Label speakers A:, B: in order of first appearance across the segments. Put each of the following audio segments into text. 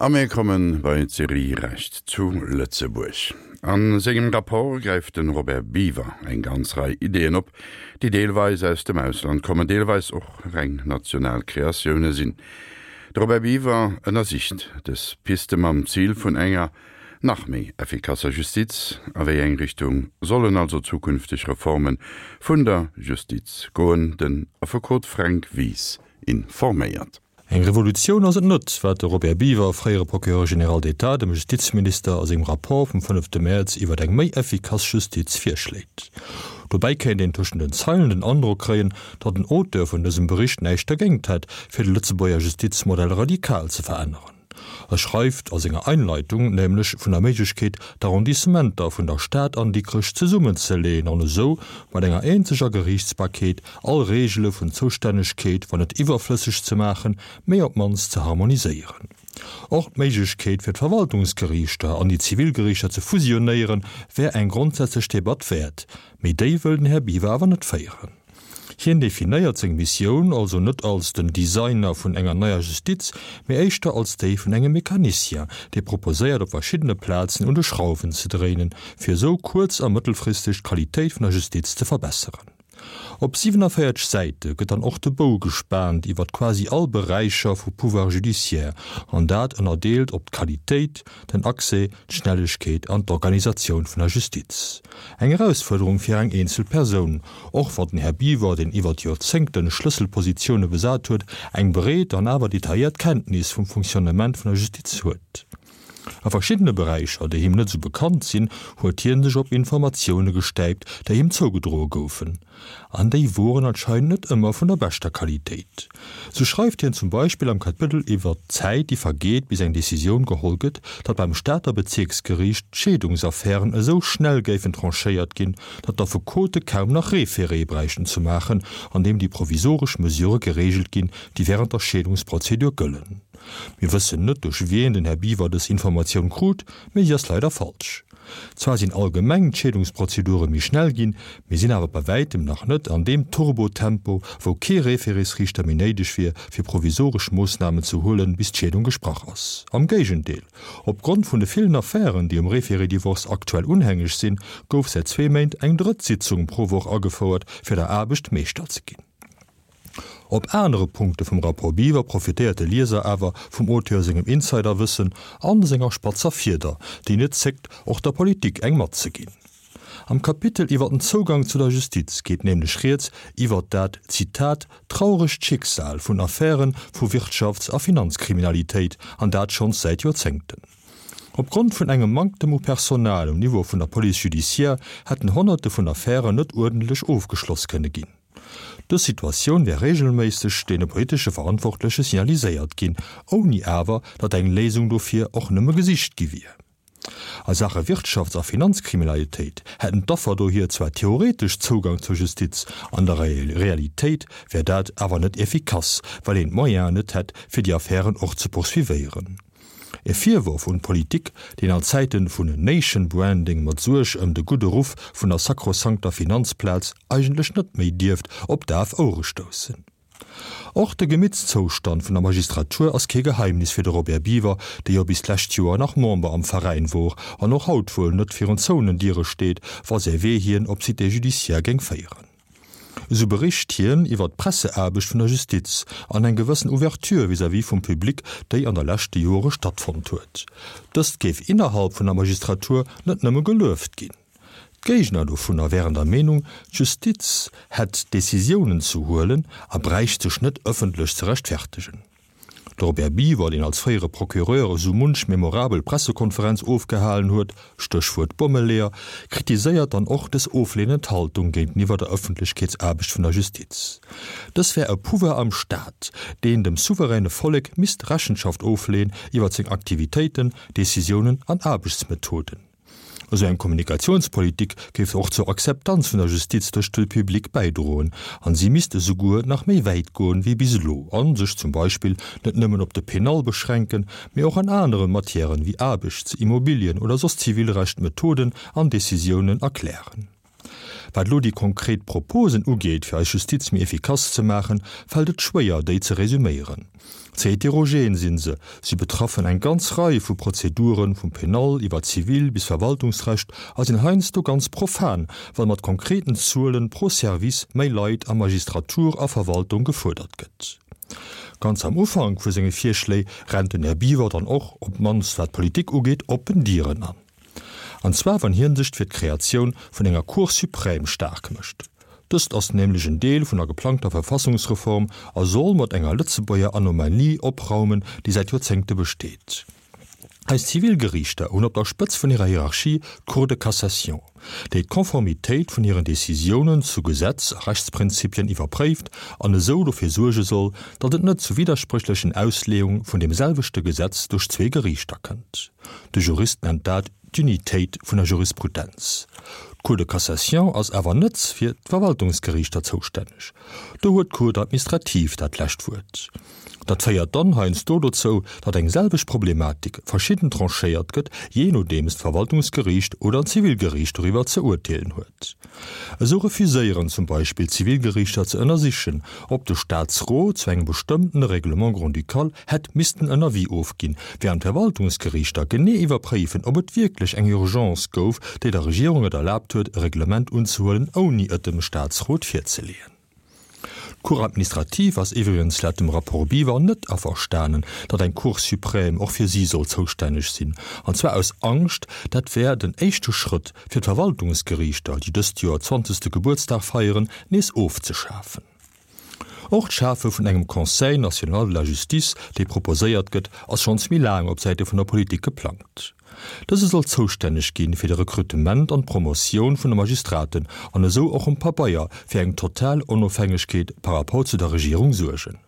A: A mir komme bei d'Serie Recht zu Lëtzebuerg. A sengem Rapport gräift de Robert Biever eng ganz Rei Ideeën op, déi deelweis aus dem Ausland kommen, deelweis och reng national Kreatioune sinn. De Robert Biever ënnersicht dës Piste mam Zil vun enger nach méi effikasser Justiz. A wéi eng Richtung sollen also zukünfteg Reforme vun der Justiz goen? Den Affekot Fränk Wies informéiert.
B: Eng Revolutioun ass et net, wat de Robert Biever, fréiere Procureur général d'État, dem Justizminister a sengem Rapport vum fënnefte Mäerz iwwer eng méi effikass Justiz virschléit. Dobäi kéint een tëschent den Zeilen den Androck kréien, datt den Auteur vun dësem Bericht näischt dergéingt hätt, fir de Lëtzebuerger Justizmodell radikal ze veränneren. E schreift a senger Einleitung nämlech vun der Méiglechkeet, d'Arrondissementer vun der Stad an Dikrech zesummenzeleeën an esou mat enger eenzeger Geriichtsbarkeet all Reegele vun Zoustännegkeet, wann net iwwerflësseg ze maachen, mee op d'mannst ze harmoniséieren. Och d'Méiglechkeet fir d'Verwaltungsgeriichter an déi Zivilgeriichter ze fusionéieren, wär eng grondsätzlech Debatt wäert, mee déi wëll den Här Biwer awer net féieren. Hien definéiert seng Missioun also net als den Designer vun enger neier Justiz, mee éischter als déi vun engem Mecanicien, dee proposéiert op verschiddene Plazen un de Schrauwen ze dréinen, fir esou kuerz a mëttelfristeg d'Qualitéit vun der Justiz ze verbesseren. Op 47 Säite gëtt dann och de Bou gespaant iwwert quasi all Beräicher vu Pouvoir judiciaire, an dat ënnerdeelt op d'Qualitéit, den Accès, d'Schnellegkeet an d'Organisatioun vun der Justiz. Eng Erausfuerderung fir eng eenzel Persoun, och wann den Här Biwer, deen iwwert Joerzéngten Schlësselpositioune besat huet, eng breet an awer detailléiert Kenntnis vum Fonctionnement vun der Justiz huet. A verschiddene Beräicher, déi him net esou bekannt sinn, huet hien sech op Informatioune gestäipt, déi him zougedroe goufen. An déi woren anscheinend net ëmmer vun der beschter Qualitéit. Sou schreift hien zum Beispill am Kapëttel iwwert d'Zäit, déi vergeet, bis eng Decisioun geholl gëtt, datt beim Stater Bezierksgeriicht d'Scheedungsaffären esou schnell géifen tranchéiert ginn, datt d'Affekote kaum nach Référé bräichten ze maachen, an deem déi provisoresch Mesurë gereegelt ginn, déi wärend der Scheedungsprozedur gëllen. Mir wëssen net, duerch wien den Här Biwer dës Informatioun krut, mee si ass leider falsch. Zwar sinn allgemeng d'Scheedungsprozedure méi schnell ginn, mee sinn awer bei wäitem nach net an deem Turbo-Tempo, wou kee Référésriichter méi néideg wier, fir provisoresch Moossnamen ze huelen, bis d'Scheedung gesprach ass. Am Géigendeel, Opgrond vun de villen Affären, déi um Référé-Divorce aktuell unhängeg sinn, gouf säit zwee Méint eng drëtt Sitzung pro Woch agefouert, fir der Aarbecht Meeschter ze ginn. Op anere Punkte vum Rapport Biwer profitéiert de Lieser awer vum Auteur sengem Insiderwëssen an senger spatzer Fieder, déi net zéckt, och der Politik eng matzeginn. Am Kapitel iwwer den Zougang zu der Justiz geet nämlech rieds iwwer dat, Zitat, trauregt Schicksal vun Affäre vu Wirtschafts a Finanzkriminalitéit, an dat schonns säit Joerzéngten. Opgrond vun engem Manktem u Personal um Niveau vun der Police judiciaire hätten Honnerte vun Affären net uerdentlech ofgeschloss kënne ginn. Dës Situatioun wär reegelméisseg deene politesche Verantwortleche signaliséiert ginn, ouni awer, datt eng Léisung dofir och nëmme gesicht gi wier. A Saache Wirtschafts a Finanzkriminalitéit hätten d'Affer dohier zwar theoretesch Zougang zur Justiz, an der Realitéit wär dat awer net effikass, well een d'Moyenen net hätt, fir déi Affären och ze poursuivéieren. E Virworf un d'Politik, deen an Zäiten vun Nation Branding mat Suerg ëm de gudde Ruff vun der sakrosankter Finanzplaz eigentlech net méi dierft op daf Ouere stoussen. Och de Gemittszoustand vun der Magistratur ass kee Geheimnis fir de Robert Biever, dee jo bis d'lescht Joer nach Member am Veräin wor an och haut wuel net virun zouenen Diere steet, wa säi Wee hien op d'Cité judiciaire géing féieren. Esou bericht hien iwwer d'Presseaarbecht vun der Justiz an eng gewëssen Ouverture vis-à-vis vum Public, déi an der leschte Jore stattfonnt huet. Dëst géif innerhalb vun der Magistratur net nëmme gelueft ginn. D'Géigner dovunner wären der Meenung, d'Justiz hätt Decisiounen ze huelen a bräicht sech net ëffentlech ze rechtfertegen. De Robert Biever, deen als fréiere Procureur esou munch memorabel Pressekonferenz ofgehalen huet, Stéchwuert Bommeleeër, kritiséiert dann och dës oflehnend Haltung géinteniwwer der Ëffentlechkeetsaarbecht vun der Justiz. Dës wär e Pouvoir am Staat, deen dem souveräne Vollek misst Rechenschaft ofleeën iwwer seng Aktivitéiten, Decisiounen an Aarbechtsmethoden. Esou eng Kommunikatiounspolitik géif och zur Akzeptanz vun der Justiz duerch de Public bäidroen an si misst esouguer nach méi wäit goen wéi bis elo an sech zum Beispill net nëmmen op de Penal beschränken, mee och an anere Matièren wéi Aarbechts-, Immobilien oder soss Zivilrecht Methoden an Decisiounen erklären. Wat elo déi konkret Proposen ugeet, fir eis Justiz méi efficace ze maachen, fält et schwéier, déi ze resüméieren. Ze heterogen sinn se, si betraffen eng ganz Rei vu Prozeduren, vum Penal iwwer Zivil bis Verwaltungsrecht, a sinn heiansdo ganz profan, well mat konkreten Zuelen pro Service méi Leit a Magistratur a Verwaltung gefuerdert gëtt. Ganz am Ufank vu senge Virschléi rennt den Här Biwer dann och, op d'mannst wat d'Politik ugeet, oppen Dieren an. An zwar wann hien sech fir d'Kreatioun vun enger Cour suprême staark mécht. Dëst ass nämlech en Deel vun der geplangter Verfassungsreform a soll mat enger Lëtzebuerger Anomalie opraumen, déi säit Joerzéngte besteet. Eis Zivilgeriichter hunn op der Spëtz vun hirer Hierarchie d'Cour de cassation, déi d'Konformitéit vun hiren Decisiounen zu Gesetz a Rechtsprinzipien iwwerpréift an esou dofir suerge soll, datt et net zu widderspréchlechen Ausleeung vun deem selwechte Gesetz duerch zwee Geriichter kënnt. De Jurist nennt dat d'Unitéit vun der Jurisprudenz. D'Cour de cassation ass awer net fir d'Verwaltungsgeriichter zoustänneg. Do huet d'Cour administrative dat lescht Wuert. Dat féiert dann heiansdo dozou, datt eng selwecht Problematik verschidden tranchéiert gëtt, jee nodeems d'Verwaltungsgeriicht oder d'Zivilgeriicht doriwwer ze urteelen huet. Esou refuséieren zum Beispill d'Zivilgeriichter ze ënnersichen, ob de Staatsrot zu engem bestëmmtene Règlement grand-ducal hätt missten en Avis ofginn, wärend d'Verwaltungsgeriichter genee iwwerpréifen, ob et wierklech eng Urgence gouf, déi der Regierung et erlaabt huet, e Reglement unzehuelen, ouni et dem Staatsrot virzeleeën. D'Cour administrative ass iwwregens laut dem Rapport Biwer net averstanen, datt eng Cour suprême och fir si soll zoustänneg sinn, an zwar aus Angscht, dat wär den éischte Schrëtt, fir d'Verwaltungsgeriichter, déi dëst Joer zwanzegste Gebuertsdag feieren, nees ofzeschafen. Och d'Schafe vun engem Conseil national de la justice, dee proposéiert gëtt, ass schonns méi laang op Säite vun der Politik geplangt. Dëse soll zoustänneg ginn fir de Rekrutement an d'Promotioun vun de Magistraten an esou och um Pabeier fir eng total Onofhängegkeet par rapport zu der Regierung suergen.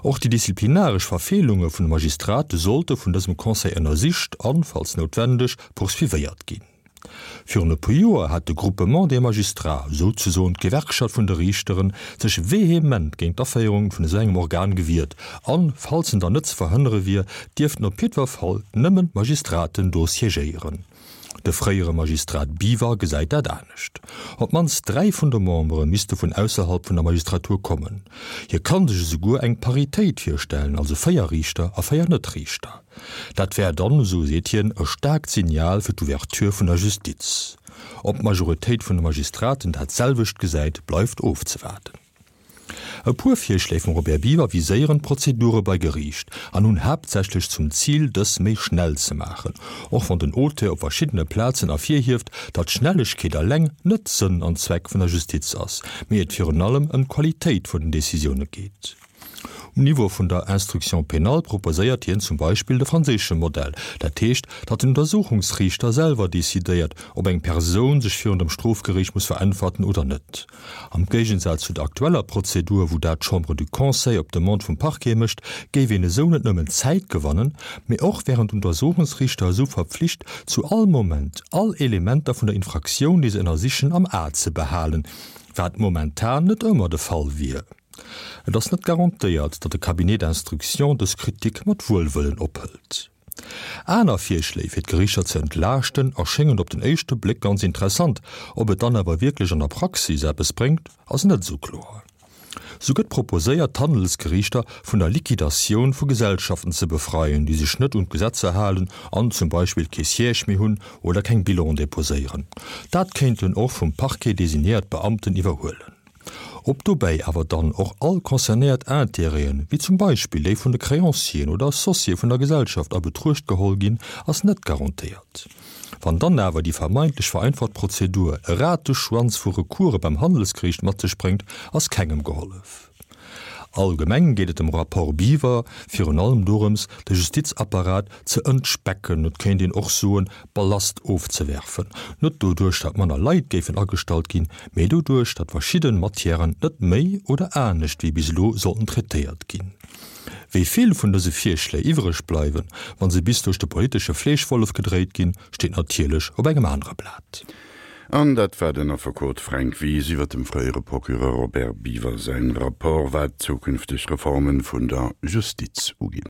B: Och déi disziplinaresch Verfeelunge vun de Magistrate sollte vun dësem Conseil ënnersicht an, falls noutwendeg, poursuivéiert ginn. Virun e puer Joer hat de Groupement des magistrats, souzesoen d'Gewerkschaft vun de Riichteren, sech vehement géint d'Aféierung vun esou engem Organ gewiert an, falls en dann net ze verhënnere wier, dierften op jiddwer Fall nëmmen d'Magistraten do siégéieren. De fréiere Magistrat Biwer gesäit dat anescht. Op d'mannst 3 vun de Membere misste vun ausserhalb vun der Magistratur kommen. Hie kann sech esouguer eng Paritéit virstellen, also 4 Riichter a 4 Net-Riichter. Dat wär dann, esou seet hien, e staarkt Signal fir d'Ouverture vun der Justiz. Ob d'Majoritéit vun de Magistraten dat selwecht gesäit, bleift ofzewaarden. E puer Virschléi vum Robert Biever viséieren d'Prozedure bei Geriicht an hunn haaptsächlech zum Zil, dës méi schnell ze maachen, och wann den Auteur op verschiddene Plazen ervirhieft, datt Schnellegkeet eleng net Sënn an Zweck vun der Justiz ass, mee et virun allem ëm d'Qualitéit vun den Decisioune geet. Um Niveau vun der Instruction pénale proposéiert hien zum Beispill de franséische Modell, dat heescht, datt den Untersuchungsriichter selwer decidéiert, ob eng Persoun sech virun dem Strofgeriicht muss veräntwerten oder net. Am Géigensaz zu der aktueller Prozedur, wou dat d'Chambre du Conseil op Demande vum Parquet mécht, géif een esou net nëmmen Zäit gewannen, mee och wären d'Untersuchungsriichter esou verpflicht, zu all Moment all Elementer vun der Infraktioun, déi se ënnersichen, am A ze behalen, wat momentan net ëmmer de Fall wier. Et ass net garantéiert, datt de Cabinet d'instruction dës Kritik mat Wuelwëllen ophëlt. Aner Virschléi fir d'Geriichter ze entlaaschten erschéngen op den éischte Bléck ganz interessant, ob et dann awer wierklech an der Praxis eppes bréngt, ass net esou kloer. Sou gëtt proposéiert, d'Handelsgeriichter vun der Liquidatioun vu Gesellschaften ze befreien, déi sech net un d'Gesetzer halen an zum Beispill kee Siège méi hunn oder keng Bilan deposéieren. Dat kéinten och vum Parquet designéiert Beamten iwwerhuelen. Ob dobäi awer dann och all concernéiert Intérêten, wéi zum Beispill déi vun de Créancieren oder Associéë vun der Gesellschaft a Betruecht geholl ginn, ass net garantéiert. Wann dann awer déi vermeintlech vereinfacht Prozedur e Rateschwanz vu Recourse beim Handelsgeriicht mat sech bréngt, ass kengem gehollef. Allgemeng geet et dem Rapport Biwer virun allem dorëms, de Justizapparat ze entspecken, et kéint een och soen, Ballast ofzewerfen, net doduerch, datt manner Leit géifen agestallt ginn, mee doduerch, datt verschidden Matièren net méi oder anescht wéi bis elo sollten traitéiert ginn. Wéi vill vun dëse Virschléi iwwreg bleiwen, wa se bis duerch de politesche Fleeschwollef gedréit ginn, steet natierlech op engem anere Blat.
A: An dat war den Affekot Fränk Wies iwwer dem fréiere Procureur Robert Biever säin Rapport, wat zukünfteg Reformen vun der Justiz uginn.